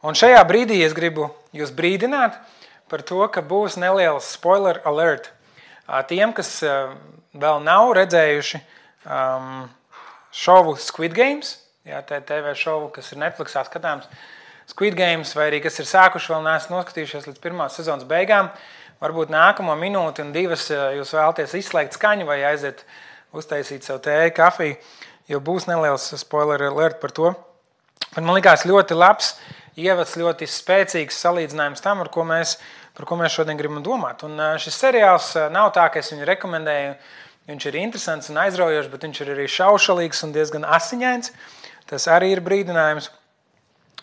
Un šajā brīdī es gribu jūs brīdināt par to, ka būs neliels spoiler alert. Tiem, kas vēl nav redzējuši šovu Squid Games, TV šovu, kas ir Netflixā skatāms, Squid Games, vai arī kas ir sākuši, vēl neesat noskatījušies līdz pirmās sezonas beigām, varbūt nākamo minūti un divas jūs vēlaties izslēgt skaņu vai aiziet uztaisīt savu tēju, kafiju, jo būs neliels spoiler alert par to. Man likās ļoti labs ievads, ļoti spēcīgs salīdzinājums tam, par ko mēs šodien gribam domāt. Un šis seriāls nav tā, ka es viņu rekomendēju, viņš ir interesants un aizraujošs, bet viņš ir arī šaušalīgs un diezgan asiņains. Tas arī ir brīdinājums.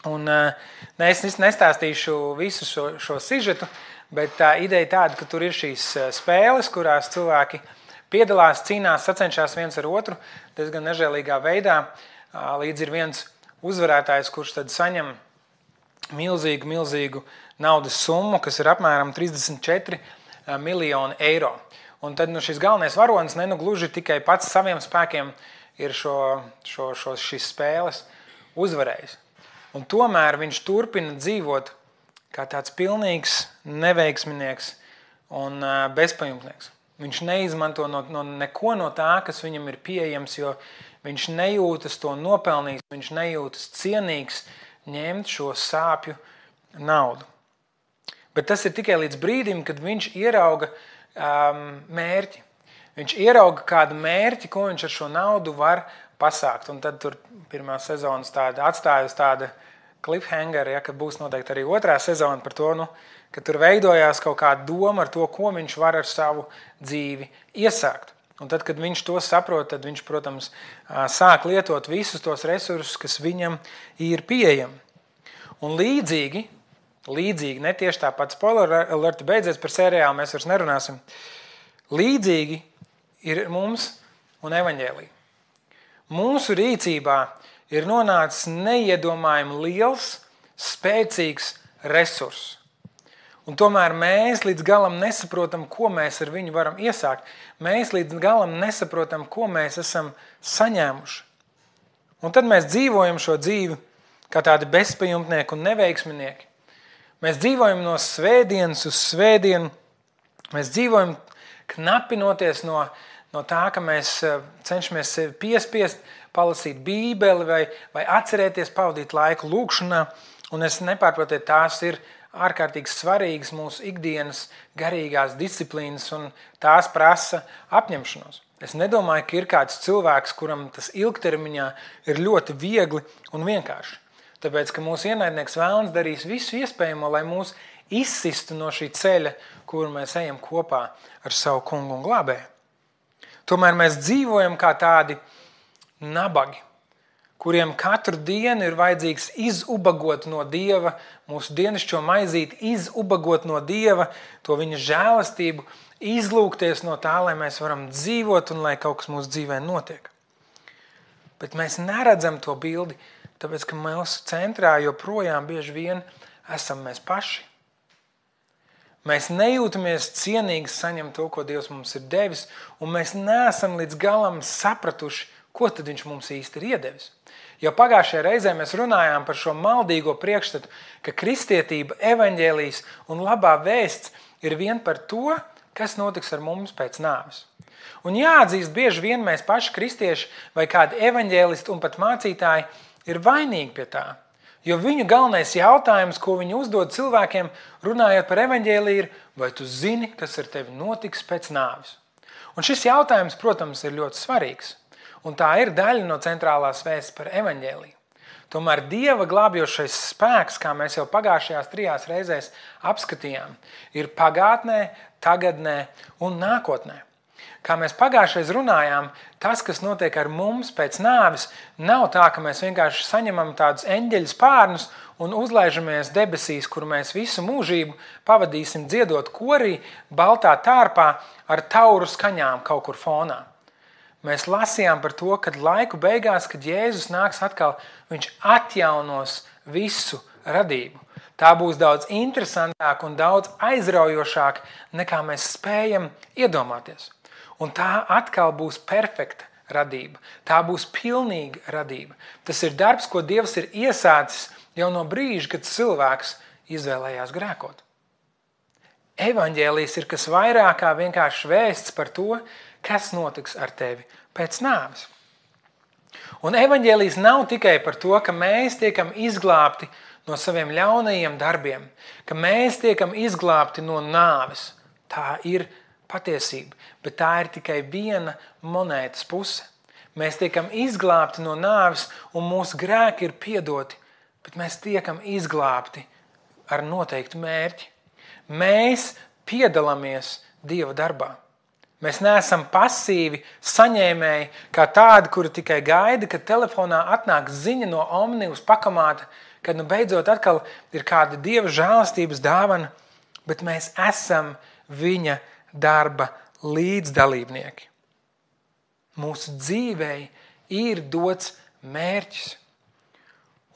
Un es nestāstīšu visu šo sižetu, bet tā ideja tāda, ka tur ir šīs spēles, kurās cilvēki piedalās, cīnās, sacenšās viens ar otru diezgan nežēlīgā veidā. Līdz ir viens uzvarētājs, kurš tad saņem milzīgu naudas summu, kas ir apmēram 34 miljoni eiro. Un tad šis galvenais varonis gluži tikai pats saviem spēkiem ir šīs spēles uzvarējis. Un tomēr viņš turpina dzīvot kā tāds pilnīgs neveiksminieks un bezpajumtnieks. Viņš neizmanto neko no tā, kas viņam ir pieejams, jo viņš nejūtas to nopelnījis, viņš nejūtas cienīgs ņemt šo sāpju naudu. Bet tas ir tikai līdz brīdim, kad viņš ierauga mērķi. Viņš ierauga kādu mērķi, ko viņš ar šo naudu var pasākt. Un tad tur pirmā sezonas atstāja uz tāda cliffhanger, ka būs noteikti arī otrā sezona par to, ka tur veidojās kaut kāda doma ar to, ko viņš var ar savu dzīvi iesākt. Un tad, kad viņš to saprot, tad viņš, protams, sāk lietot visus tos resursus, kas viņam ir pieejami. Un līdzīgi, ne tieši tāpat spoiler alert beidzies par seriālu, mēs vairs nerunāsim, līdzīgi ir mums un evaņģēlija. Mūsu rīcībā ir nonācis neiedomājami liels, spēcīgs resurss. Un tomēr mēs līdz galam nesaprotam, ko mēs ar viņu varam iesākt. Mēs līdz galam nesaprotam, ko mēs esam saņēmuši. Un tad mēs dzīvojam šo dzīvi kā tādi bezpajumtnieki un neveiksminieki. Mēs dzīvojam no svētdienas uz svētdienu. Mēs dzīvojam knapinoties no tā, ka mēs cenšamies sevi piespiest, palasīt Bībeli vai atcerēties pavadīt laiku lūkšanā. Un es nepārprotiet, tās ir ārkārtīgi svarīgas mūsu ikdienas garīgās disciplīnas un tās prasa apņemšanos. Es nedomāju, ka ir kāds cilvēks, kuram tas ilgtermiņā ir ļoti viegli un vienkārši. Tāpēc, ka mūsu ienaidnieks vēlns darīs visu iespējamo, lai mūs izsistu no šī ceļa, kuru mēs ejam kopā ar savu kungu un glābēju. Tomēr mēs dzīvojam kā tādi nabagi, kuriem katru dienu ir vajadzīgs izubagot no Dieva, mūsu dienascho maizīti izubagot no Dieva, to viņa žēlastību, izlūgties no tā, lai mēs varam dzīvot un lai kaut kas mūsu dzīvē notiek. Bet mēs neredzam to bildi, tāpēc, ka mūsu centrā joprojām bieži vien esam mēs paši. Mēs nejūtamies cienīgi saņemt to, ko Dievs mums ir devis, un mēs neesam līdz galam sapratuši, ko tad viņš mums īsti ir iedevis. Jo pagājušajā reizē mēs runājām par šo maldīgo priekšstatu, ka kristietība, evaņģēlijs un labā vēsts ir vien par to, kas notiks ar mums pēc nāves. Un jāatzīst, bieži vien mēs paši kristieši vai kādi evaņģēlisti un pat mācītāji ir vainīgi pie tā. Jo viņu galvenais jautājums, ko viņi uzdod cilvēkiem, runājot par evaņģēliju, ir, vai tu zini, kas ar tevi notiks pēc nāves? Un šis jautājums, protams, ir ļoti svarīgs. Un tā ir daļa no centrālās vēsts par evaņģēliju. Tomēr Dieva glābjošais spēks, kā mēs jau pagājušajās 3 reizēs apskatījām, ir pagātnē, tagadnē un nākotnē. Kā mēs pagājušais runājām, tas, kas notiek ar mums pēc nāves, nav tā, ka mēs vienkārši saņemam tādus eņģeļu spārnus un uzlaižamies debesīs, kur mēs visu mūžību pavadīsim dziedot korī, baltā tārpā ar tauru skaņām kaut kur fonā. Mēs lasījām par to, kad laiku beigās, kad Jēzus nāks atkal, viņš atjaunos visu radību. Tā būs daudz interesantāk un daudz aizraujošāk, nekā mēs spējam iedomāties. Un tā atkal būs perfekta radība. Tā būs pilnīga radība. Tas ir darbs, ko Dievs ir iesācis jau no brīža, kad cilvēks izvēlējās grēkot. Evaņģēlijs ir kas vairāk kā vienkārši vēsts par to, kas notiks ar tevi pēc nāves. Un evaņģēlijs nav tikai par to, ka mēs tiekam izglābti no saviem ļaunajiem darbiem, ka mēs tiekam izglābti no nāves. Tā ir patiesība, bet tā ir tikai viena monētas puse. Mēs tiekam izglābti no nāves un mūsu grēki ir piedoti, bet mēs tiekam izglābti ar noteiktu mērķi. Mēs piedalāmies Dieva darbā. Mēs neesam pasīvi saņēmēji kā tādi, kuri tikai gaida, kad telefonā atnāk ziņa no Omnibus pakamāta, kad beidzot atkal ir kāda Dieva žēlastības dāvana, bet mēs esam viņa darba līdzdalībnieki. Mūsu dzīvei ir dots mērķis.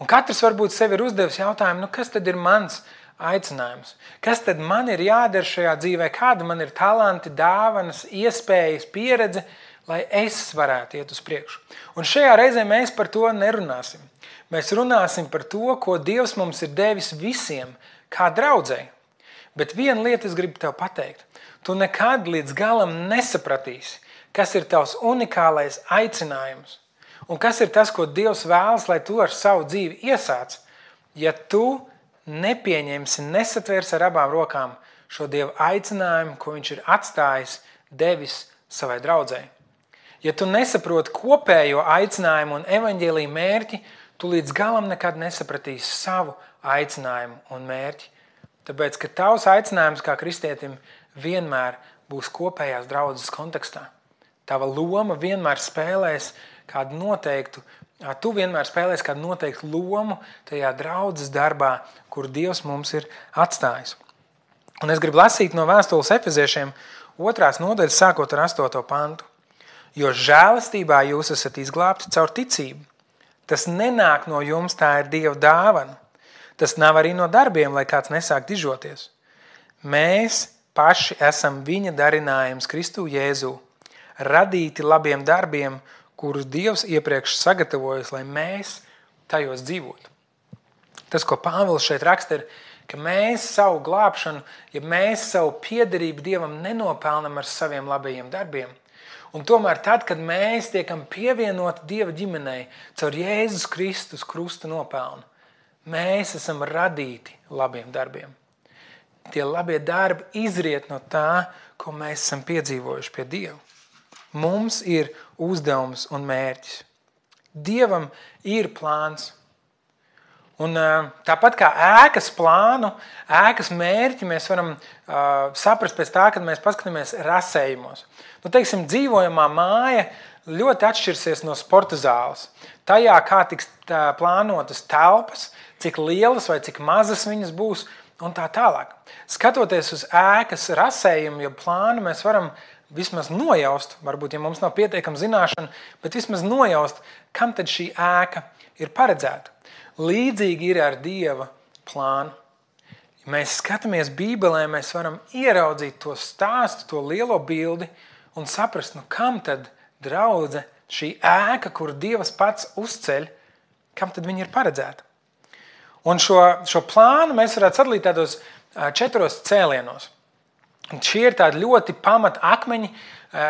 Un katrs varbūt sev ir uzdevis jautājumu, kas tad ir mans aicinājums? Kas tad man ir jādara šajā dzīvē? Kāda man ir talanti, dāvanas, iespējas, pieredze, lai es varētu iet uz priekšu? Un šajā reizē mēs par to nerunāsim. Mēs runāsim par to, ko Dievs mums ir devis visiem, kā draudzei. Bet viena lieta es gribu tev pateikt. Tu nekad līdz galam nesapratīsi, kas ir tavs unikālais aicinājums. Un kas ir tas, ko Dievs vēlas, lai tu ar savu dzīvi iesāc, ja tu nepieņemsi, nesatvers ar abām rokām šo Dieva aicinājumu, ko viņš ir atstājis, devis savai draudzei. Ja tu nesaproti kopējo aicinājumu un evaņģēlija mērķi, tu līdz galam nekad nesapratīsi savu aicinājumu un mērķi. Tāpēc, ka tavs aicinājums kā kristietim vienmēr būs kopējās draudzes kontekstā. Tava loma vienmēr spēlēs kādu noteiktu, tu vienmēr spēlēs kādu noteiktu lomu tajā draudzes darbā, kur Dievs mums ir atstājis. Un es gribu lasīt no vēstules Efeziešiem 2. nodaļas, sākot ar 8. pantu. Jo žēlastībā jūs esat izglābti caur ticību. Tas nenāk no jums, tā ir Dieva dāvana. Tas nav arī no darbiem, lai kāds nesāk dižoties. Mēs paši esam viņa darinājums Kristu Jēzū, radīti labiem darbiem, kurus Dievs iepriekš sagatavojas, lai mēs tajos dzīvotu. Tas, ko Pāvils šeit raksta, ir, ka mēs savu glābšanu, ja mēs savu piederību Dievam nenopelnam ar saviem labajiem darbiem. Un tomēr tad, kad mēs tiekam pievienoti Dieva ģimenei caur Jēzus Kristus krusta nopelnu, mēs esam radīti labiem darbiem. Tie labie darbi izriet no tā, ko mēs esam piedzīvojuši pie Dieva. Mums ir uzdevums un mērķis. Dievam ir plāns. Un tāpat kā ēkas plānu, ēkas mērķi mēs varam saprast pēc tā, kad mēs paskatāmies rasējumos. Teiksim, dzīvojamā māja ļoti atšķirsies no sporta zāles. Tajā, kā tiks plānotas telpas, cik lielas vai cik mazas viņas būs un tā tālāk. Skatoties uz ēkas rasējumu, ja plānu, mēs varam vismaz nojaust, varbūt, ja mums nav pietiekama zināšana, bet vismaz nojaust, kam tad šī ēka ir paredzēta. Līdzīgi ir ar Dieva plānu. Ja mēs skatāmies Bībelē, mēs varam ieraudzīt to stāstu, to lielo bildi un saprast, kam tad draudze, šī ēka, kur Dievs pats uzceļ, kam tad viņa ir paredzēta. Un šo plānu mēs varētu sadalīt tādos 4 cēlienos. Un šie ir tādi ļoti pamata akmeņi.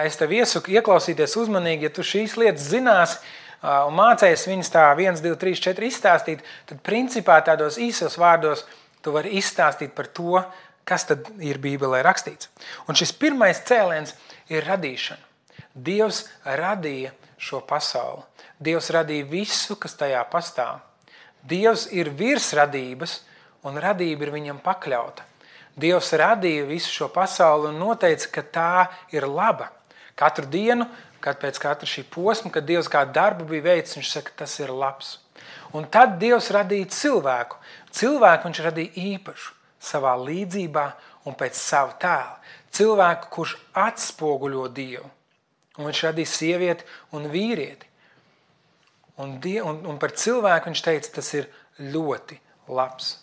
Es tev iesaku ieklausīties uzmanīgi, ja tu šīs lietas zināsi un mācējies viņas tā 1, 2, 3, 4 izstāstīt, tad principā tādos īsos vārdos tu vari izstāstīt par to, kas tad ir Bībelē rakstīts. Un šis pirmais cēliens ir radīšana. Dievs radīja šo pasauli. Dievs radīja visu, kas tajā pastāv. Dievs ir virs radības, un radība ir viņam pakļauta. Dievs radīja visu šo pasauli un noteica, ka tā ir laba. Katru dienu, kad pēc katra šī posma, kad Dievs kādu darbu bija veicis, viņš saka, tas ir labs. Un tad Dievs radīja cilvēku. Cilvēku viņš radīja īpašu, savā līdzībā un pēc sava tēla. Cilvēku, kurš atspoguļo Dievu. Un viņš radīja sievieti un vīrieti. Un par cilvēku viņš teica, tas ir ļoti labs.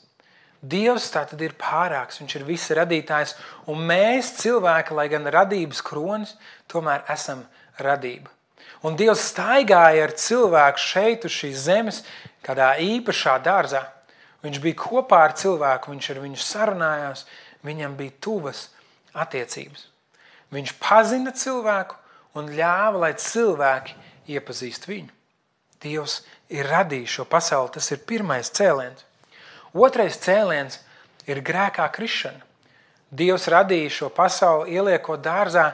Dievs tātad ir pārāks, viņš ir visa radītājs, un mēs cilvēki, lai gan radības kronis, tomēr esam radība. Un Dievs staigāja ar cilvēku šeit uz šīs zemes, kādā īpašā dārzā. Viņš bija kopā ar cilvēku, viņš ar viņu sarunājās, viņam bija tuvas attiecības. Viņš pazina cilvēku un ļāva, lai cilvēki iepazīst viņu. Dievs ir radījis šo pasauli, tas ir pirmais cēliens. Otrais cēliens ir grēkā krišana. Dievs radīja šo pasauli, ieliekot dārzā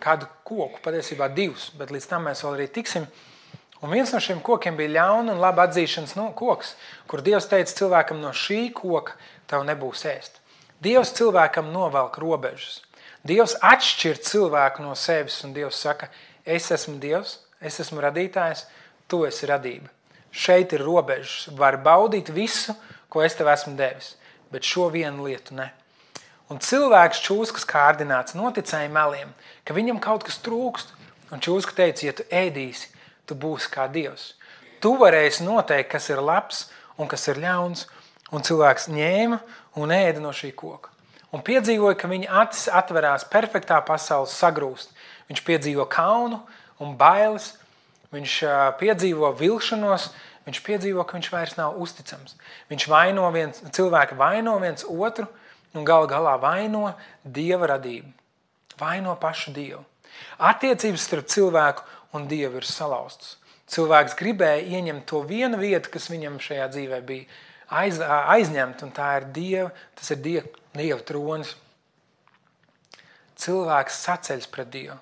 kādu koku, patiesībā 2, bet līdz tam mēs vēl arī tiksim. Un viens no šiem kokiem bija ļauna un laba atzīšanas koks, kur Dievs teica cilvēkam, no šī koka tev nebūs ēst. Dievs cilvēkam novelk robežas. Dievs atšķir cilvēku no sevis, un Dievs saka, es esmu Dievs, es esmu radītājs, tu esi radība. Šeit ir robežas, var baudīt visu, ko es tev esmu devis, bet šo vienu lietu ne. Un cilvēks čūskas kārdināts noticēja meliem, ka viņam kaut kas trūkst, un čūska teica, ja tu ēdīsi, tu būsi kā Dievs. Tu varēsi noteikt, kas ir labs un kas ir ļauns, un cilvēks ņēma un ēda no šī koka. Un piedzīvoja, ka viņa acis atverās perfektā pasaules sagrūst. Viņš piedzīvo kaunu un bailes, viņš piedzīvo vilšanos, viņš piedzīvo, ka viņš vairs nav uzticams. Cilvēki vaino viens otru un galā vaino Dieva radību. Vaino pašu Dievu. Attiecības starp cilvēku un Dievu ir salauztas. Cilvēks gribēja ieņemt to vienu vietu, kas viņam šajā dzīvē bija aizņemt, un tas ir Dieva tronis. Cilvēks saceļas pret Dievu.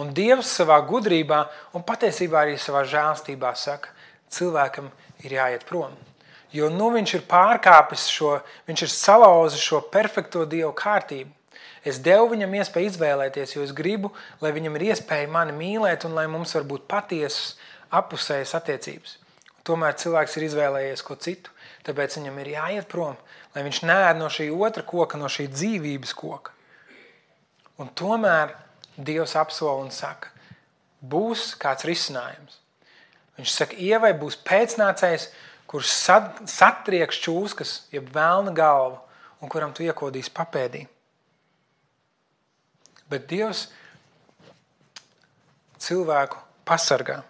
Un Dievs savā gudrībā un patiesībā arī savā žēlstībā saka, cilvēkam ir jāiet prom. Jo viņš ir pārkāpis viņš ir salauzis šo perfekto Dievu kārtību. Es devu viņam iespēju izvēlēties, jo es gribu, lai viņam ir iespēja mani mīlēt un lai mums var būt patiesas apusējas attiecības. Tomēr cilvēks ir izvēlējies ko citu, tāpēc viņam ir jāiet prom, lai viņš neēd no šī otra koka, no šī dzīvības koka. Un tomēr Dievs apsola un saka, būs kāds risinājums. Viņš saka, Ievai būs pēcnācējs, kurš satrieks čūskas, jeb velna galvu, un kuram tu iekodīs papēdī. Bet Dievs cilvēku pasargā.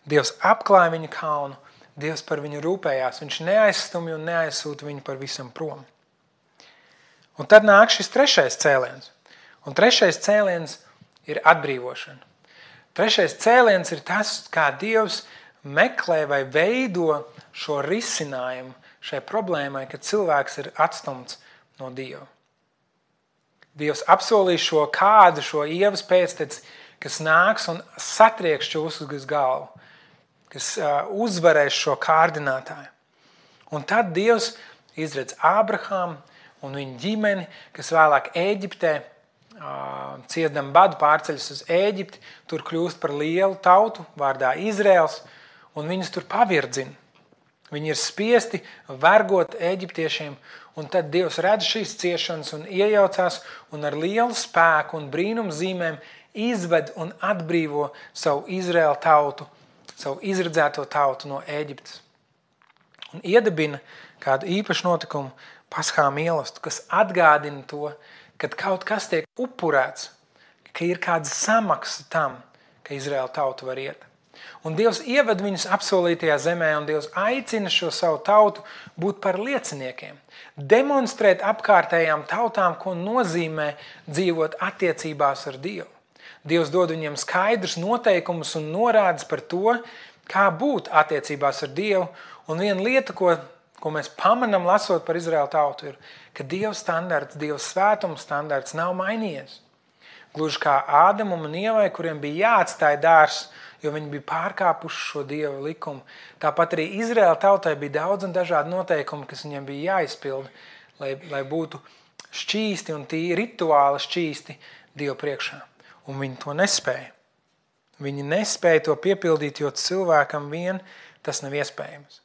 Dievs apklāja viņu kaunu, Dievs par viņu rūpējās, viņš neaizstumja un neaizsūta viņu par visam prom. Un tad nāk šis trešais cēliens. Un trešais cēliens ir atbrīvošana. Trešais cēliens ir tas, kā Dievs meklē vai veido šo risinājumu šai problēmai, kad cilvēks ir atstumts no Dieva. Dievs apsolīja šo Ievas pēcteci, kas nāks un satrieks čūskas galvu, kas uzvarēs šo kārdinātāju. Un tad Dievs izredz Ābrahāmu un viņa ģimeni, kas vēlāk Ēģiptē ciesdam badu pārceļas uz Ēģipti, tur kļūst par lielu tautu vārdā Izraels, un viņus tur pavirdzina. Viņi ir spiesti vergot eģiptiešiem, un tad Dievs redz šīs ciešanas un iejaucās un ar lielu spēku un brīnumu zīmēm izved un atbrīvo savu Izraēlu tautu, savu izredzēto tautu no Ēģiptes. Un iedibina kādu īpašu notikumu Paskā mīlestību, kas atgādina to, kad kaut kas tiek upurēts, ka ir kāda samaksa tam, ka Izraēla tauta var iet. Un Dievs ieved viņus apsolītajā zemē, un Dievs aicina šo savu tautu būt par lieciniekiem, demonstrēt apkārtējām tautām, ko nozīmē dzīvot attiecībās ar Dievu. Dievs dod viņiem skaidrus noteikumus un norādes par to, kā būt attiecībās ar Dievu, un viena lieta, ko mēs pamanām lasot par Izraēlu tautu, ir, ka Dieva standarts, Dieva svētuma standarts nav mainījies. Gluži kā Ādamam un Ievai, kuriem bija jāatstāja dārzs, jo viņi bija pārkāpuši šo Dieva likumu. Tāpat arī Izraēla tautai bija daudz un dažādi noteikumi, kas viņiem bija jāizpilda, lai būtu šķīsti un rituāli šķīsti Dieva priekšā. Un viņi to nespēja. Viņi nespēja to piepildīt, jo cilvēkam vien tas nav iespējams.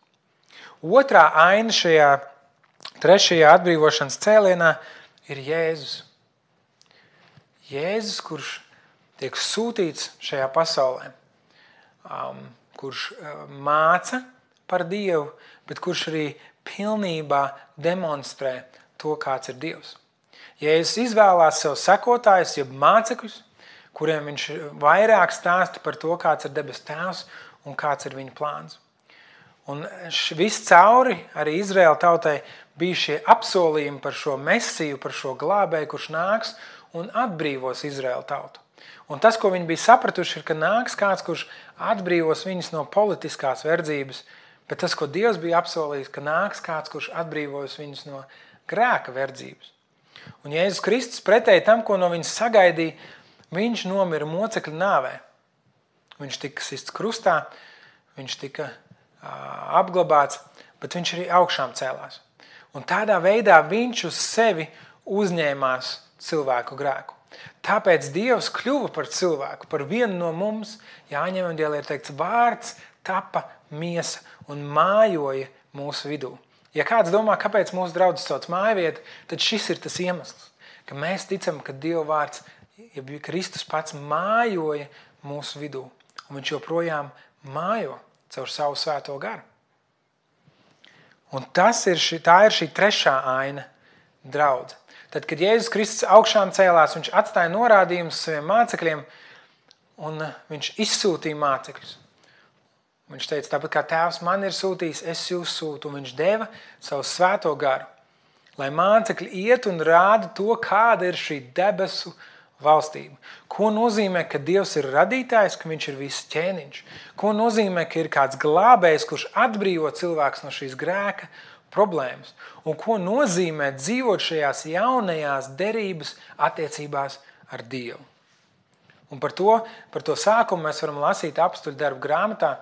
Otrā aina šajā trešajā atbrīvošanas cēlienā ir Jēzus. Jēzus, kurš tiek sūtīts šajā pasaulē, kurš māca par Dievu, bet kurš arī pilnībā demonstrē to, kāds ir Dievs. Jēzus izvēlās sev sekotājus, jeb mācekļus, kuriem viņš vairāk stāsta par to, kāds ir debes tēvs un kāds ir viņa plāns. Un viss cauri arī Izraēla tautai bija šie apsolījumi par šo mesiju, par šo glābēju, kurš nāks un atbrīvos Izraēla tautu. Un tas, ko viņi bija sapratuši, ir, ka nāks kāds, kurš atbrīvos viņus no politiskās verdzības, bet tas, ko Dievs bija apsolījis, ka nāks kāds, kurš atbrīvos viņus no grēka verdzības. Un Jēzus Kristus pretēji tam, ko no viņas sagaidīja, viņš nomira mocekļa nāvē. Viņš tika sists krustā, viņš tika apglabāts, bet viņš arī augšām cēlās. Un tādā veidā viņš uz sevi uzņēmās cilvēku grēku. Tāpēc Dievs kļuva par cilvēku, par vienu no mums. Jāņa evanģēlijā ir teikts, vārds tapa miesa un mājoja mūsu vidū. Ja kāds domā, kāpēc mūsu draudzes sauc mājvietu, tad šis ir tas iemesls, ka mēs ticam, ka Dieva vārds, ja Kristus pats mājoja mūsu vidū. Un viņš joprojām mājo caur savu svēto garu. Un tā ir šī trešā aina draudze. Tad, kad Jēzus Kristus augšām cēlās, viņš atstāja norādījumus saviem mācekļiem un viņš izsūtīja mācekļus. Viņš teica, tāpat kā tēvs man ir sūtījis, es jūs sūtu. Un viņš deva savu svēto garu, lai mācekļi iet un rāda to, kāda ir šī debesu valstība. Ko nozīmē, ka Dievs ir radītājs, ka viņš ir viss ķēniņš? Ko nozīmē, ka ir kāds glābējs, kurš atbrīvo cilvēks no šīs grēka problēmas? Un ko nozīmē dzīvot šajās jaunajās derības attiecībās ar Dievu? Un par to sākumu mēs varam lasīt apstuļu darbu grāmatā,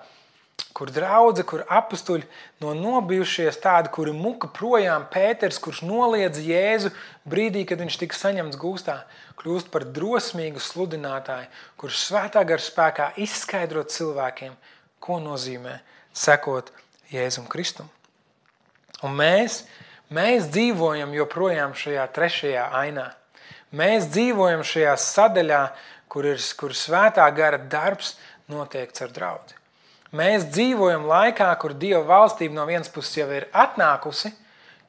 kur draudze, kur apustuļi no nobijušies tādi, kuri muka projām Pēters, kurš noliedza Jēzu brīdī, kad viņš tika saņemts gūstā, kļūst par drosmīgu sludinātāju, kurš svētā gara spēkā izskaidrot cilvēkiem, ko nozīmē sekot Jēzum Kristum. Un mēs dzīvojam joprojām šajā trešajā ainā. Mēs dzīvojam šajā sadaļā, kur svētā gara darbs notiek ar draudzi. Mēs dzīvojam laikā, kur Dieva valstība no vienas puses jau ir atnākusi,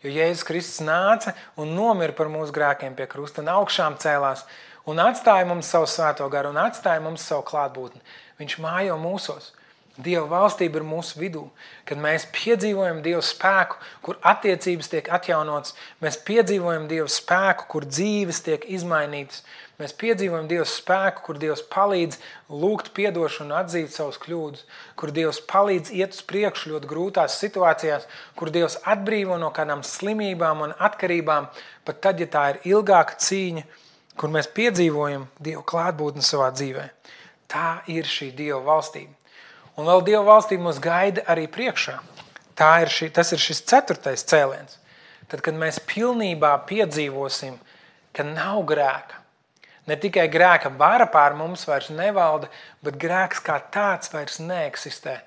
jo Jēzus Kristus nāca un nomira par mūsu grēkiem pie krusta un augšām cēlās un atstāja mums savu svēto garu un atstāja mums savu klātbūtni. Viņš mājo mūsos. Dieva valstība ir mūsu vidū, kad mēs piedzīvojam Dieva spēku, kur attiecības tiek atjaunotas, mēs piedzīvojam Dieva spēku, kur dzīves tiek izmainītas, mēs piedzīvojam Dieva spēku, kur Dievs palīdz lūgt piedošanu un atzīt savus kļūdus, kur Dievs palīdz iet uz priekšu ļoti grūtās situācijās, kur Dievs atbrīvo no kādām slimībām un atkarībām, pat tad, ja tā ir ilgāka cīņa, kur mēs piedzīvojam Dieva klātbūtni savā dzīvē. Tā ir šī Dieva valstība. Un vēl Dieva valstība mūs gaida arī priekšā. Tas ir šis 4. cēliens. Tad, kad mēs pilnībā piedzīvosim, ka nav grēka, ne tikai grēka vara pār mums vairs nevalda, bet grēks kā tāds vairs neeksistē.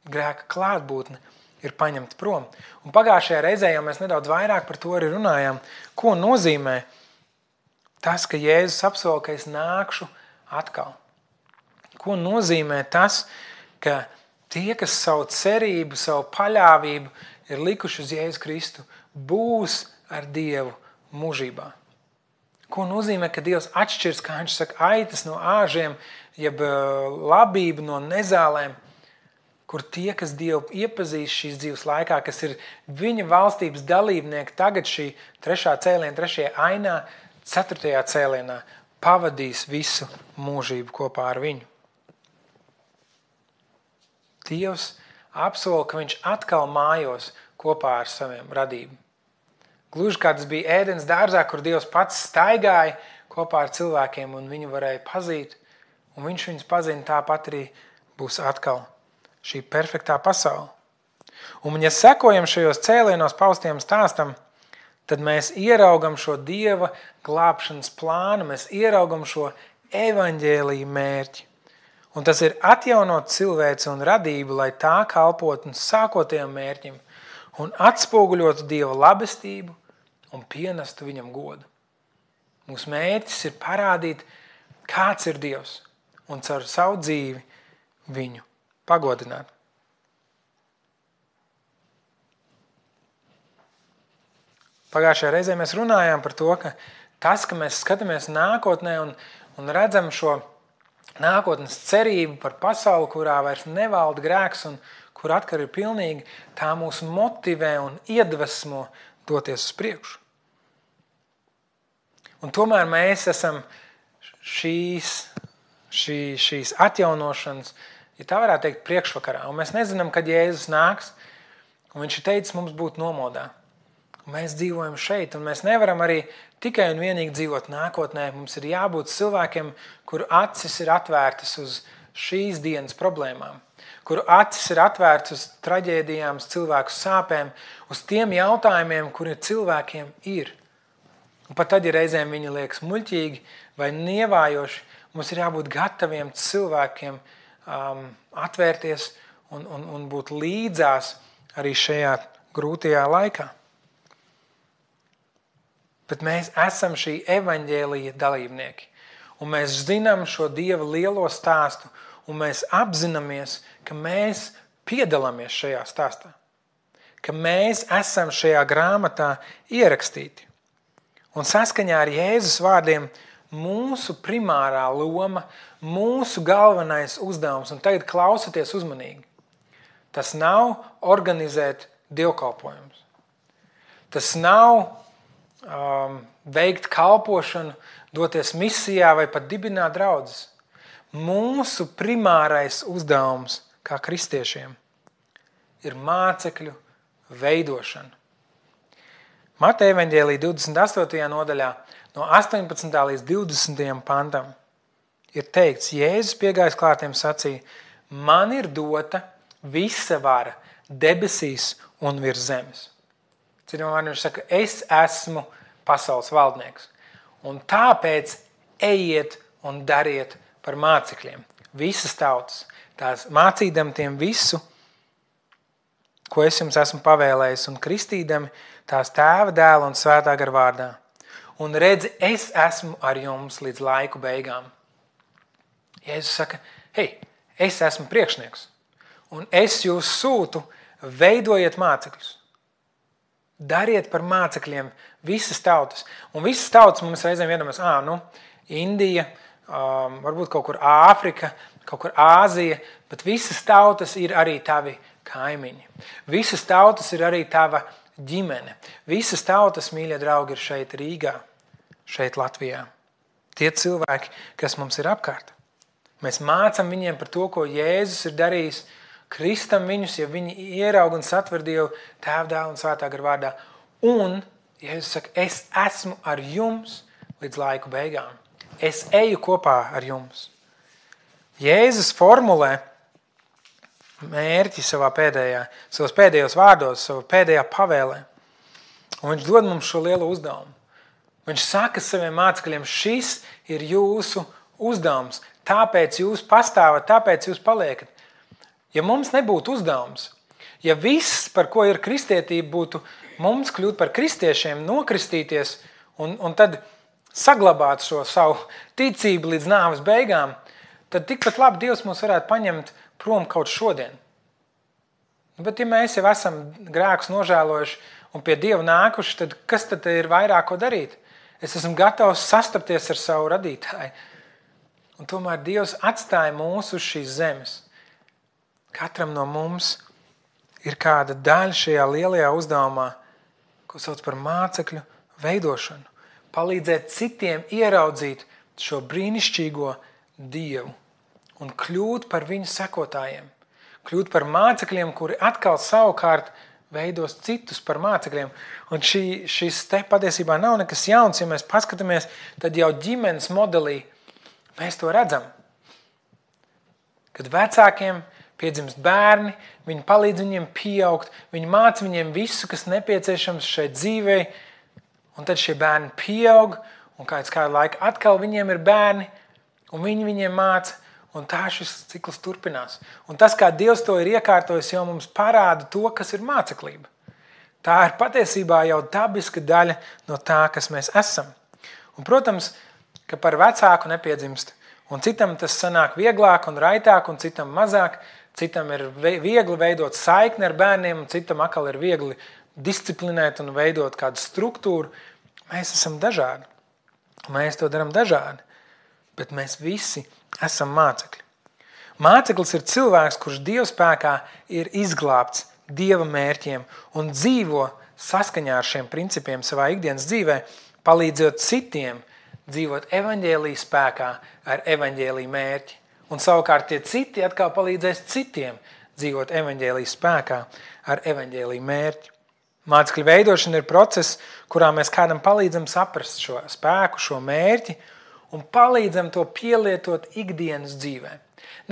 Grēka klātbūtne ir paņemta prom. Un pagājušajā reizē jau mēs nedaudz vairāk par to arī runājām, ko nozīmē tas, ka Jēzus apsola, ka es nākšu atkal. Ko nozīmē tas, ka tie, kas savu cerību, savu paļāvību ir likuši uz Jēzu Kristu, būs ar Dievu mūžībā. Ko nozīmē, ka Dievs atšķirs, kā viņš saka, aitas no āžiem, jeb labību no nezālēm, kur tie, kas Dievu iepazīst šīs dzīves laikā, kas ir viņa valstības dalībnieki, tagad šī 3. cēliena, 3. ainā, 4. cēlienā pavadīs visu mūžību kopā ar viņu. Dievs apsola, ka viņš atkal mājos kopā ar saviem radību. Gluži kā tas bija Ēdens dārzā, kur Dievs pats staigāja kopā ar cilvēkiem un viņu varēja pazīt, un viņš viņus pazina, tāpat arī būs atkal šī perfektā pasaule. Un ja sekojam šajos cēlienos paustiem stāstam, tad mēs ieraugam šo Dieva glābšanas plānu, mēs ieraugam šo evaņģēliju mērķi. Un tas ir atjaunot cilvēci un radību, lai tā kalpotu sākotējiem mērķim un atspoguļotu Dieva labestību un pienestu viņam godu. Mūsu mērķis ir parādīt, kāds ir Dievs un caur savu dzīvi viņu pagodināt. Pagājušajā reizē mēs runājām par to, ka tas, ka mēs skatāmies nākotnē un redzam šo nākotnes cerību par pasauli, kurā vairs nevalda grēks un kur atkal ir pilnīgi, tā mūs motivē un iedvesmo doties uz priekšu. Un tomēr mēs esam šīs atjaunošanas, ja tā varētu teikt, priekšvakarā. Un mēs nezinām, kad Jēzus nāks, un viņš ir teicis mums būt nomodā. Un mēs dzīvojam šeit, un mēs nevaram arī tikai un vienīgi dzīvot nākotnē. Mums ir jābūt cilvēkiem, kuru acis ir atvērtas uz šīs dienas problēmām, kuru acis ir atvērtas uz traģēdijām, uz cilvēku sāpēm, uz tiem jautājumiem, kuri cilvēkiem ir. Un pat tad, ja reizēm viņi liekas muļķīgi vai nievājoši, mums ir jābūt gataviem cilvēkiem atvērties un būt līdzās arī šajā grūtajā laikā. Bet mēs esam šī evaņģēlija dalībnieki. Un mēs zinām šo Dieva lielo stāstu, un mēs apzināmies, ka mēs piedalāmies šajā stāstā. Ka mēs esam šajā grāmatā ierakstīti. Un saskaņā ar Jēzus vārdiem mūsu primārā loma, mūsu galvenais uzdevums, un tagad klausieties uzmanīgi, tas nav organizēt dievkalpojumus. Tas nav veikt kalpošanu, doties misijā vai pat dibināt draudzes. Mūsu primārais uzdevums kā kristiešiem ir mācekļu veidošana. Mateja evaņģēlija 28. nodaļā no 18. līdz 20. pantam ir teikts, Jēzus piegājis klātiem sacīja, man ir dota visa vara debesīs un virs zemes. Citiem vārdiem viņš saka, es esmu pasaules valdnieks. Un tāpēc ejiet un dariet par mācekļiem. Visas tautas, tās mācīdam tiem visu, ko es jums esmu pavēlējis, un kristīdami tās Tēva, Dēla un Svētā gara vārdā. Un redzi, es esmu ar jums līdz laiku beigām. Jēzus saka, hei, es esmu priekšnieks, un es jūs sūtu, veidojiet mācekļus. Dariet par mācekļiem visas tautas. Un visas tautas mums reizēm iedomās, Indija, varbūt kaut kur Āfrika, kaut kur Āzija, bet visas tautas ir arī tavi kaimiņi. Visas tautas ir arī tava ģimene. Visas tautas, mīļie draugi, ir šeit Rīgā, šeit Latvijā. Tie cilvēki, kas mums ir apkārt. Mēs mācam viņiem par to, ko Jēzus ir darījis, kristam viņus, ja viņi ieraug un satver Dievu Tēva, Dēla un Svētā gara vārdā. Un Jēzus saka, es esmu ar jums līdz laiku beigām. Es eju kopā ar jums. Jēzus formulē mērķi savos pēdējos vārdos, savā pēdējā pavēlē. Un viņš dod mums šo lielo uzdevumu. Viņš saka saviem mācekļiem, šis ir jūsu uzdevums, tāpēc jūs pastāvat, tāpēc jūs paliekat. Ja mums nebūtu uzdevums, ja viss, par ko ir kristietība, būtu mums kļūt par kristiešiem, nokristīties un tad saglabāt šo savu ticību līdz nāves beigām, tad tikpat labi Dievs mūs varētu paņemt prom kaut šodien. Bet ja mēs jau esam grēkus nožēlojuši un pie Dieva nākuši, tad kas tad ir vairāk ko darīt? Es esmu gatavs sastapties ar savu radītāju. Un tomēr Dievs atstāja mūs uz šīs zemes. Katram no mums ir kāda daļa šajā lielajā uzdevumā, ko sauc par mācekļu veidošanu. Palīdzēt citiem ieraudzīt šo brīnišķīgo Dievu un kļūt par viņu sekotājiem. Kļūt par mācekļiem, kuri atkal savukārt veidos citus par mācekļiem. Un šis te patiesībā nav nekas jauns, ja mēs paskatāmies, tad jau ģimenes modelī mēs to redzam. Kad vecākiem piedzimst bērni, viņi palīdz viņiem pieaugt, viņi māca viņiem visu, kas nepieciešams šai dzīvei, un tad šie bērni pieaug, un kādu laiku atkal viņiem ir bērni, un viņi viņiem māca, un tā šis cikls turpinās. Un tas, kā Dievs to ir iekārtojis, jau mums parāda to, kas ir māceklība. Tā ir patiesībā jau dabiska daļa no tā, kas mēs esam. Un, protams, ka par vecāku nepiedzimst, un citam tas sanāk vieglāk un raitāk, un citam mazāk. Citam ir viegli veidot saikni ar bērniem, un citam atkal ir viegli disciplinēt un veidot kādu struktūru. Mēs esam dažādi. Mēs to darām dažādi. Bet mēs visi esam mācekļi. Māceklis ir cilvēks, kurš Dieva spēkā ir izglābts Dieva mērķiem un dzīvo saskaņā ar šiem principiem savā ikdienas dzīvē, palīdzot citiem dzīvot evaņģēlija spēkā ar evaņģēlija mērķi. Un savukārt tie citi atkal palīdzēs citiem dzīvot evaņģēlija spēkā ar evaņģēlija mērķi. Mācekļu veidošana ir process, kurā mēs kādam palīdzam saprast šo spēku, šo mērķi un palīdzam to pielietot ikdienas dzīvē.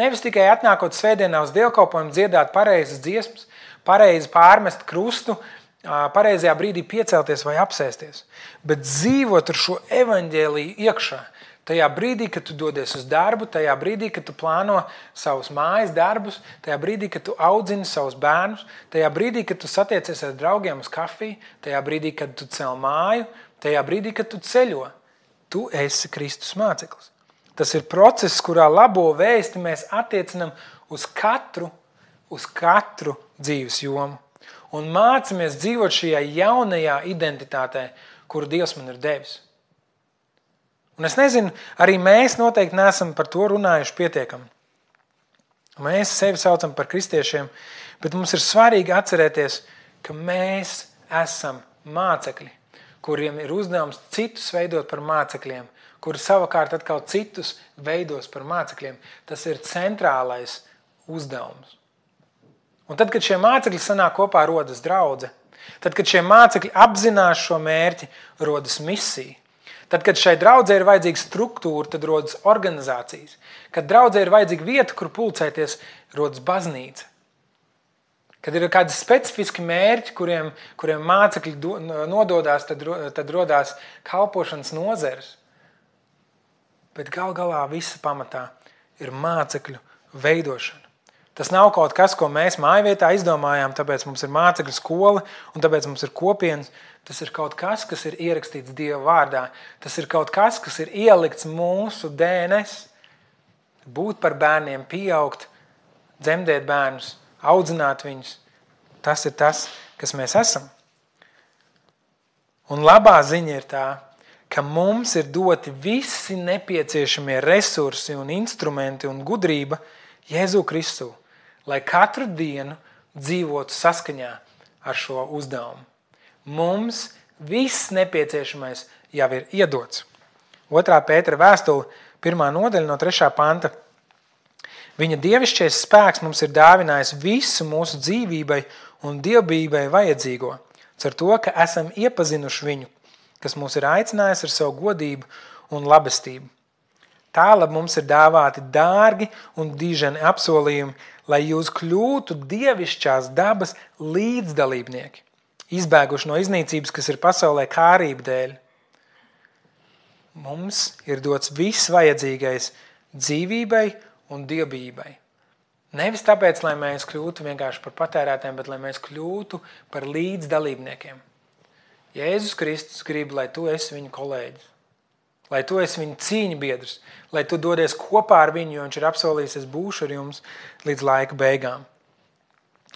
Nevis tikai atnākot svētdienā uz dievkalpojumu dziedāt pareizas dziesmas, pareizi pārmest krustu, pareizajā brīdī piecelties vai apsēsties, bet dzīvot ar šo evaņģēliju iekšā. Tajā brīdī, kad tu dodies uz darbu, tajā brīdī, kad tu plāno savus mājas darbus, tajā brīdī, kad tu audzini savus bērnus, tajā brīdī, kad tu satiecies ar draugiem uz kafiju, tajā brīdī, kad tu cel māju, tajā brīdī, kad tu ceļo, tu esi Kristus māceklis. Tas ir process, kurā labo vēsti mēs attiecinam uz katru dzīves jomu un mācamies dzīvot šajā jaunajā identitātē, kuru Dievs man ir devis. Un es nezinu, arī mēs noteikti neesam par to runājuši pietiekami. Mēs sevi saucam par kristiešiem, bet mums ir svarīgi atcerēties, ka mēs esam mācekļi, kuriem ir uzdevums citus veidot par mācekļiem, kuri savukārt atkal citus veidos par mācekļiem. Tas ir centrālais uzdevums. Un tad, kad šie mācekļi sanāk kopā, rodas draudze. Tad, kad šie mācekļi apzinās šo mērķi, rodas misija. Tad, kad šai draudzē ir vajadzīga struktūra, tad rodas organizācijas. Kad draudzē ir vajadzīga vieta, kur pulcēties, rodas baznīca. Kad ir kādi specifiski mērķi, kuriem mācekļi nododās, tad rodās kalpošanas nozeres. Bet galā visa pamatā ir mācekļu veidošana. Tas nav kaut kas, ko mēs mājvietā izdomājām, tāpēc mums ir mācekļu skola un tāpēc mums ir kopienas. Tas ir kaut kas, kas ir ierakstīts Dieva vārdā. Tas ir kaut kas, kas ir ielikts mūsu DNS. Būt par bērniem, pieaugt, dzemdēt bērnus, audzināt viņus. Tas ir tas, kas mēs esam. Un labā ziņa ir tā, ka mums ir doti visi nepieciešamie resursi un instrumenti un gudrība Jēzu Kristu, lai katru dienu dzīvotu saskaņā ar šo uzdevumu. Mums viss nepieciešamais jau ir iedots. 2. Pētera vēstule, 1. nodaļa no 3. panta. Viņa dievišķais spēks mums ir dāvinājis visu mūsu dzīvībai un dievbijībai vajadzīgo, ar to, ka esam iepazinuši viņu, kas mūs ir aicinājis ar savu godību un labestību. Tālāk mums ir dāvāti dārgi un diženi apsolījumi, lai jūs kļūtu dievišķās dabas līdzdalībnieki, izbēguši no iznīcības, kas ir pasaulē kārība dēļ. Mums ir dots viss vajadzīgais dzīvībai un dievbijībai. Nevis tāpēc, lai mēs kļūtu vienkārši par patērētiem, bet lai mēs kļūtu par līdzdalībniekiem. Jēzus Kristus grib, lai tu esi viņu kolēģis, lai tu esi viņa cīņa biedrs, lai tu dodies kopā ar viņu, jo viņš ir apsolījis, es būšu ar jums līdz laika beigām.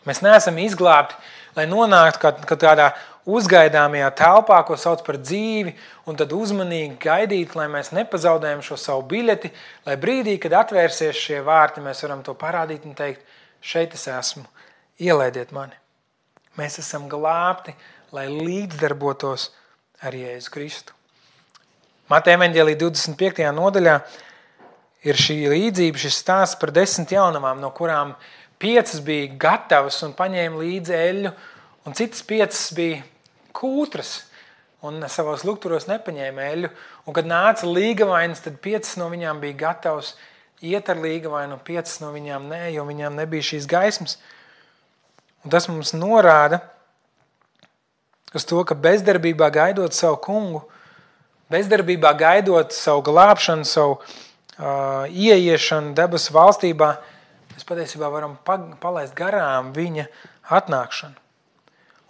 Mēs neesam izglābti, lai nonāktu kādā uzgaidāmajā telpā, ko sauc par dzīvi, un tad uzmanīgi gaidīt, lai mēs nepazaudējam šo savu biļeti, lai brīdī, kad atvērsies šie vārti, mēs varam to parādīt un teikt, šeit es esmu, ielaidiet mani. Mēs esam glābti, lai līdzdarbotos ar Jēzu Kristu. Mateja evaņģēlija 25. nodaļā ir šī līdzība, šis stāsts par 10 jaunavām, no kurām 5 bija gatavas un paņēma līdzi eļļu, un citas 5 bija kūtras un savos lukturos nepaņēma eļļu. Un kad nāca līgavainas, tad 5 no viņām bija gatavas iet ar līgavainu, un 5 no viņām nē, jo viņām nebija šīs gaismas. Un tas mums norāda uz to, ka bezdarbībā gaidot savu kungu, bezdarbībā gaidot savu glābšanu, savu ieiešanu debesu valstībā, mēs patiesībā varam palaist garām viņa atnākšanu.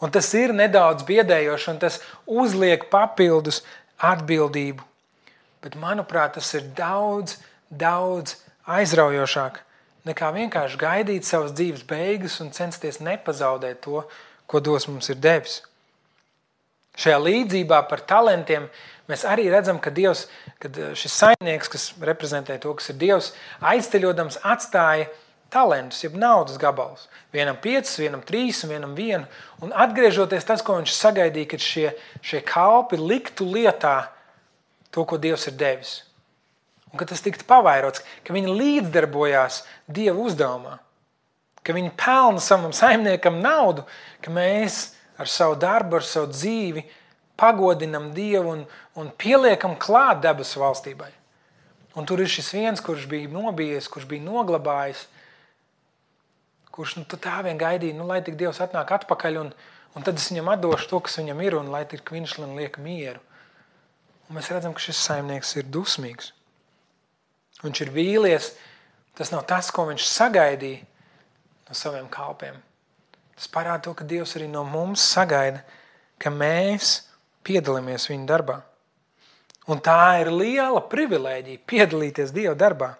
Un tas ir nedaudz biedējoši, un tas uzliek papildus atbildību. Bet, manuprāt, tas ir daudz aizraujošāk nekā vienkārši gaidīt savas dzīves beigas un censties nepazaudēt to, ko Dievs mums ir devis. Šajā līdzībā par talantiem Mēs arī redzam, ka Dievs, kad šis saimnieks, kas reprezentē to, kas ir Dievs, aizceļodams atstāja talentus, jeb naudas gabalus. Vienam 5, vienam 3 un vienam 1. Un atgriežoties tas, ko viņš sagaidīja, kad šie kalpi liktu lietā to, ko Dievs ir devis. Un ka tas tiktu pavairots, ka viņi līdzdarbojās Dieva uzdevumā. Ka viņi pelna savam saimniekam naudu, ka mēs ar savu darbu, ar savu dzīvi pagodinam Dievu un pieliekam klāt debesu valstībai. Un tur ir šis viens, kurš bija nobijies, kurš bija noglabājis, kurš tā vien gaidīja, lai tik Dievs atnāk atpakaļ, un tad es viņam atdošu to, kas viņam ir, un lai tik viņš liek mieru. Un mēs redzam, ka šis saimnieks ir dusmīgs. Viņš ir vīlies, tas nav tas, ko viņš sagaidīja no saviem kalpiem. Tas parāda to, ka Dievs arī no mums sagaida, ka mēs piedalāmies viņa darbā. Un tā ir liela privilēģija piedalīties Dieva darbā.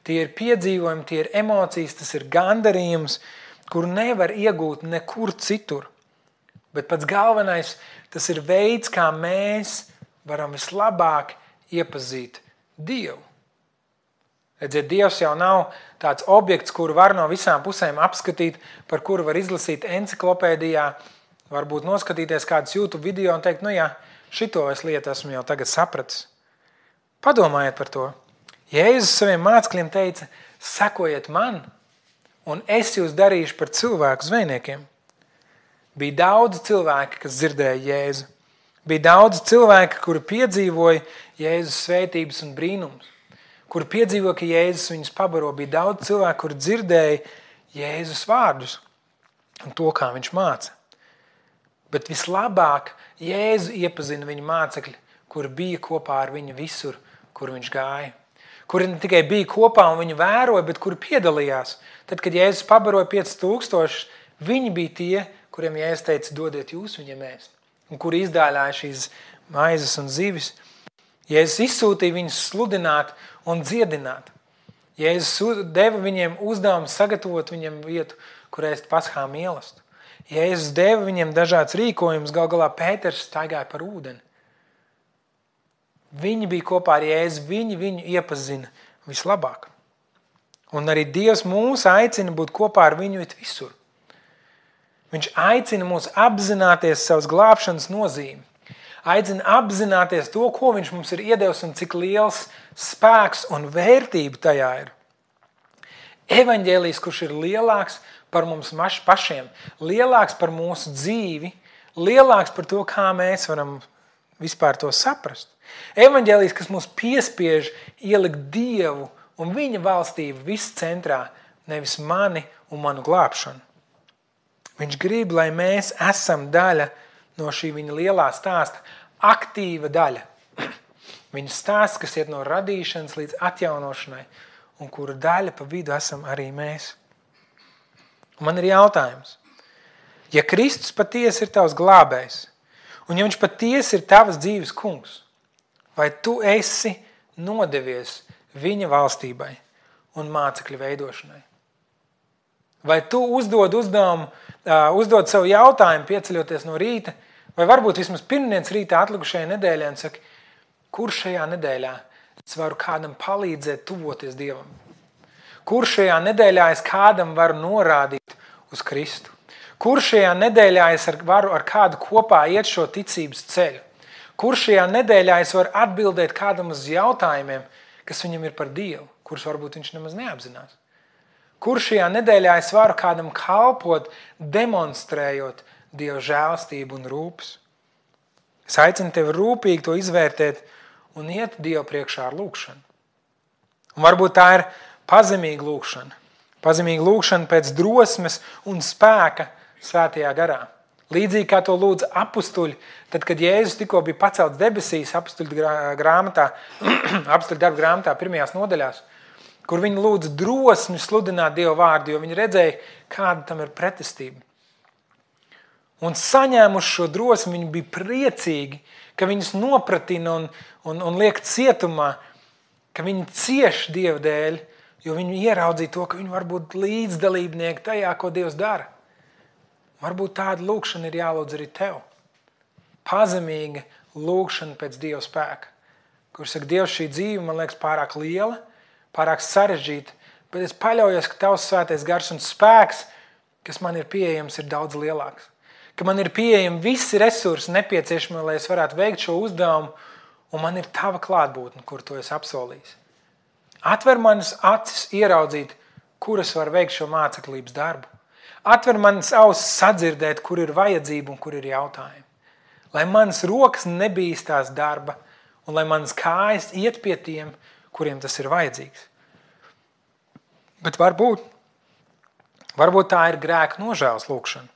Tie ir piedzīvojumi, tie ir emocijas, tas ir gandarījums, kuru nevar iegūt nekur citur. Bet pats galvenais, tas ir veids, kā mēs varam vislabāk iepazīt Dievu. Redziet, Dievs jau nav tāds objekts, kuru var no visām pusēm apskatīt, par kuru var izlasīt enciklopēdijā, varbūt noskatīties kādus YouTube video un teikt, šito es lietu esmu jau tagad sapratis. Padomājiet par to. Jēzus saviem mācekļiem teica, sekojiet man, un es jūs darīšu par cilvēku zvejniekiem. Bija daudz cilvēki, kas dzirdēja Jēzu. Bija daudz cilvēki, kuri piedzīvoja Jēzus svētības un brīnums. Kuri piedzīvoja, ka Jēzus viņus pabaro. Bija daudz cilvēku, kuri dzirdēja Jēzus vārdus un to, kā viņš māca. Bet vislabāk Jēzu iepazina viņa mācekļi, kuri bija kopā ar viņu visur, kur viņš gāja. Kuri ne tikai bija kopā un viņu vēroja, bet kuri piedalījās. Tad, kad Jēzus pabaroja 5000, viņi bija tie, kuriem Jēzus teica, dodiet jūs viņiem ēst. Un kuri izdāļāja šīs maizes un zivis. Jēzus izsūtīja viņus sludināt un dziedināt. Jēzus deva viņiem uzdevumu sagatavot viņiem vietu, kur ēst paschā mīlestību. Jēzus deva viņiem dažāds rīkojums, gal galā Pēters staigāja par ūdeni. Viņi bija kopā ar Jēzu, viņi viņu iepazina vislabāk. Un arī Dievs mūs aicina būt kopā ar viņu visur. Viņš aicina mūs apzināties savas glābšanas nozīmi. Aicina apzināties to, ko viņš mums ir iedevis un cik liels spēks un vērtība tajā ir. Evaņģēlijs, kurš ir lielāks par mums pašiem, lielāks par mūsu dzīvi, lielāks par to, kā mēs varam vispār to saprast. Evaņģēlijs, kas mūs piespiež ielikt Dievu un viņa valstību viss centrā, nevis mani un manu glābšanu. Viņš grib, lai mēs esam daļa no šī viņa lielā stāsta, aktīva daļa. Viņa stāsts, kas iet no radīšanas līdz atjaunošanai, un kura daļa pa vidu esam arī mēs. Un man ir jautājums. Ja Kristus patiesi ir tavs glābējs, un ja viņš patiesi ir tavas dzīves kungs, vai tu esi nodevies viņa valstībai un mācekļu veidošanai? Vai tu uzdod savu jautājumu, pieceļoties no rīta, vai varbūt vismaz pirmdienas rītā atlikušajā nedēļā un saki, kur šajā nedēļā es varu kādam palīdzēt tuvoties Dievam? Kur šajā nedēļā es kādam varu norādīt uz Kristu? Kur šajā nedēļā es varu ar kādu kopā iet šo ticības ceļu? Kur šajā nedēļā es varu atbildēt kādam uz jautājumiem, kas viņam ir par Dievu, kurus varbūt viņš nemaz neapzinās? Kur šajā nedēļā es varu kādam kalpot, demonstrējot Dieva žēlstību un rūpes? Es aicinu tevi rūpīgi to izvērtēt un iet Dievu priekšā ar lūkšanu. Un varbūt tā ir pazemīga lūkšana. Pazemīga lūkšana pēc drosmes un spēka svētajā garā. Līdzīgi kā to lūdza apustuļi, tad, kad Jēzus tikko bija pacelts debesīs apustuļu darba grāmatā pirmajās nodaļās, kur viņi lūdza drosmi sludināt Dieva vārdu, jo viņi redzēja, kāda tam ir pretestība. Un saņēmuši šo drosmi, viņi bija priecīgi, ka viņus nopratina un liek cietumā, ka viņi cieš Dieva dēļ, jo viņi ieraudzīja to, ka viņi var būt līdzdalībnieki tajā, ko Dievs dara. Varbūt tāda lūkšana ir jālūdz arī tev. Pazemīga lūgšana pēc Dieva spēka. Kur saka, Dievs, šī dzīve man liekas pārāk liela, pārāk sarežģīta, bet es paļaujos, ka Tavs svētais gars un spēks, kas man ir pieejams, ir daudz lielāks. Ka man ir pieejami visi resursi nepieciešami, lai es varētu veikt šo uzdevumu, un man ir Tava klātbūtne, kur Tu esi apsolījis. Atver manas acis ieraudzīt, kur es varu veikt šo māceklības darbu. Atver manas ausis sadzirdēt, kur ir vajadzība un kur ir jautājumi. Lai manas rokas nebīstās darba un lai manas kājas iet pie tiem, kuriem tas ir vajadzīgs. Bet varbūt tā ir grēka nožēlas lūgšana.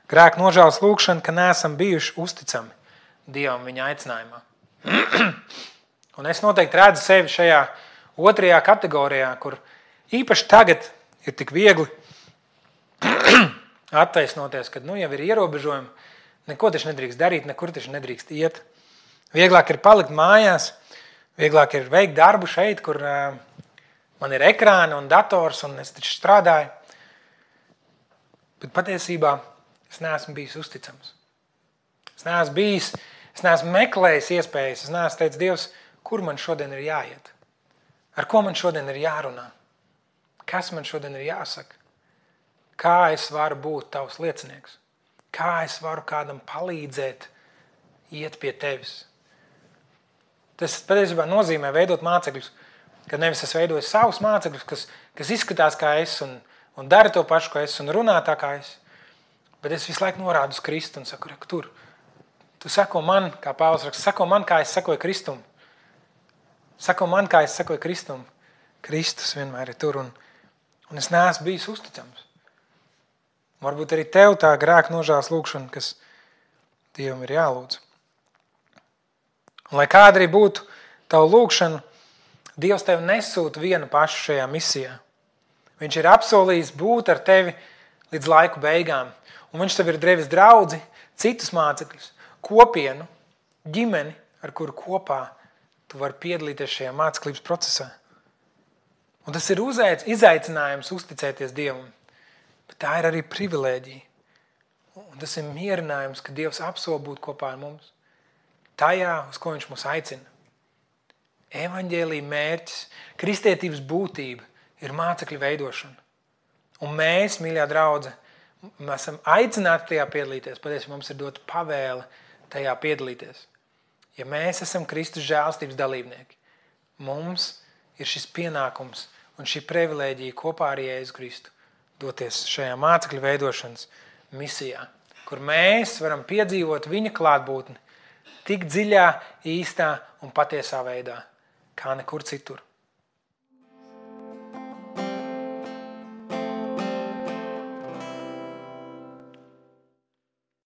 Grēka nožēlas lūgšana, ka neesam bijuši uzticami Dievam viņa aicinājumā. Un es noteikti redzu sevi šajā otrajā kategorijā, kur īpaši tagad ir tik viegli attaisnoties, kad jau ir ierobežojumi, neko taču nedrīkst darīt, nekur taču nedrīkst iet. Vieglāk ir palikt mājās, vieglāk ir veikt darbu šeit, kur man ir ekrāni un dators un es taču strādāju. Bet patiesībā es neesmu bijis uzticams. Es neesmu meklējis iespējas, es neesmu teicis, Dievs, kur man šodien ir jāiet? Ar ko man šodien ir jārunā? Kas man šodien ir jāsaka? Kā es varu būt Tavs liecinieks? Kā es varu kādam palīdzēt iet pie Tevis? Tas patiesībā nozīmē veidot mācekļus, kad nevis es veidoju savus mācekļus, kas izskatās kā es un dara to pašu, kā es un runā tā kā es, bet es visu laiku norādu uz Kristu un saku, tur, tu sako man, kā Pāvils raksta, sako man, kā es sakoju Kristum. Sako man, kā es sakoju Kristum. Kristus vienmēr ir tur un es neesmu bijis uzticams. Varbūt arī tev tā grēka nožēlas lūgšana, kas Dievam ir jālūdz. Un lai kāda arī būtu tavu lūgšanu, Dievs tev nesūta vienu pašu šajā misijā. Viņš ir apsolījis būt ar tevi līdz laiku beigām. Un viņš tev ir devis draudzi, citus mācekļus, kopienu, ģimeni, ar kuru kopā tu vari piedalīties šajā māceklības procesā. Un tas ir izaicinājums uzticēties Dievam. Bet tā ir arī privilēģija. Un tas ir mierinājums, ka Dievs apsola būt kopā ar mums. Tajā, uz ko viņš mūs aicina. Evaņģēlija mērķis, kristietības būtība ir mācekļu veidošana. Un mēs, mīļā draudze, mēs esam aicināti tajā piedalīties. Patiesībā mums ir dota pavēle tajā piedalīties. Ja mēs esam Kristus žēlstības dalībnieki, mums ir šis pienākums un šī privilēģija kopā ar Jēzu Kristu doties šajā mācekļu veidošanas misijā, kur mēs varam piedzīvot viņa klātbūtni tik dziļā, īstā un patiesā veidā, kā nekur citur.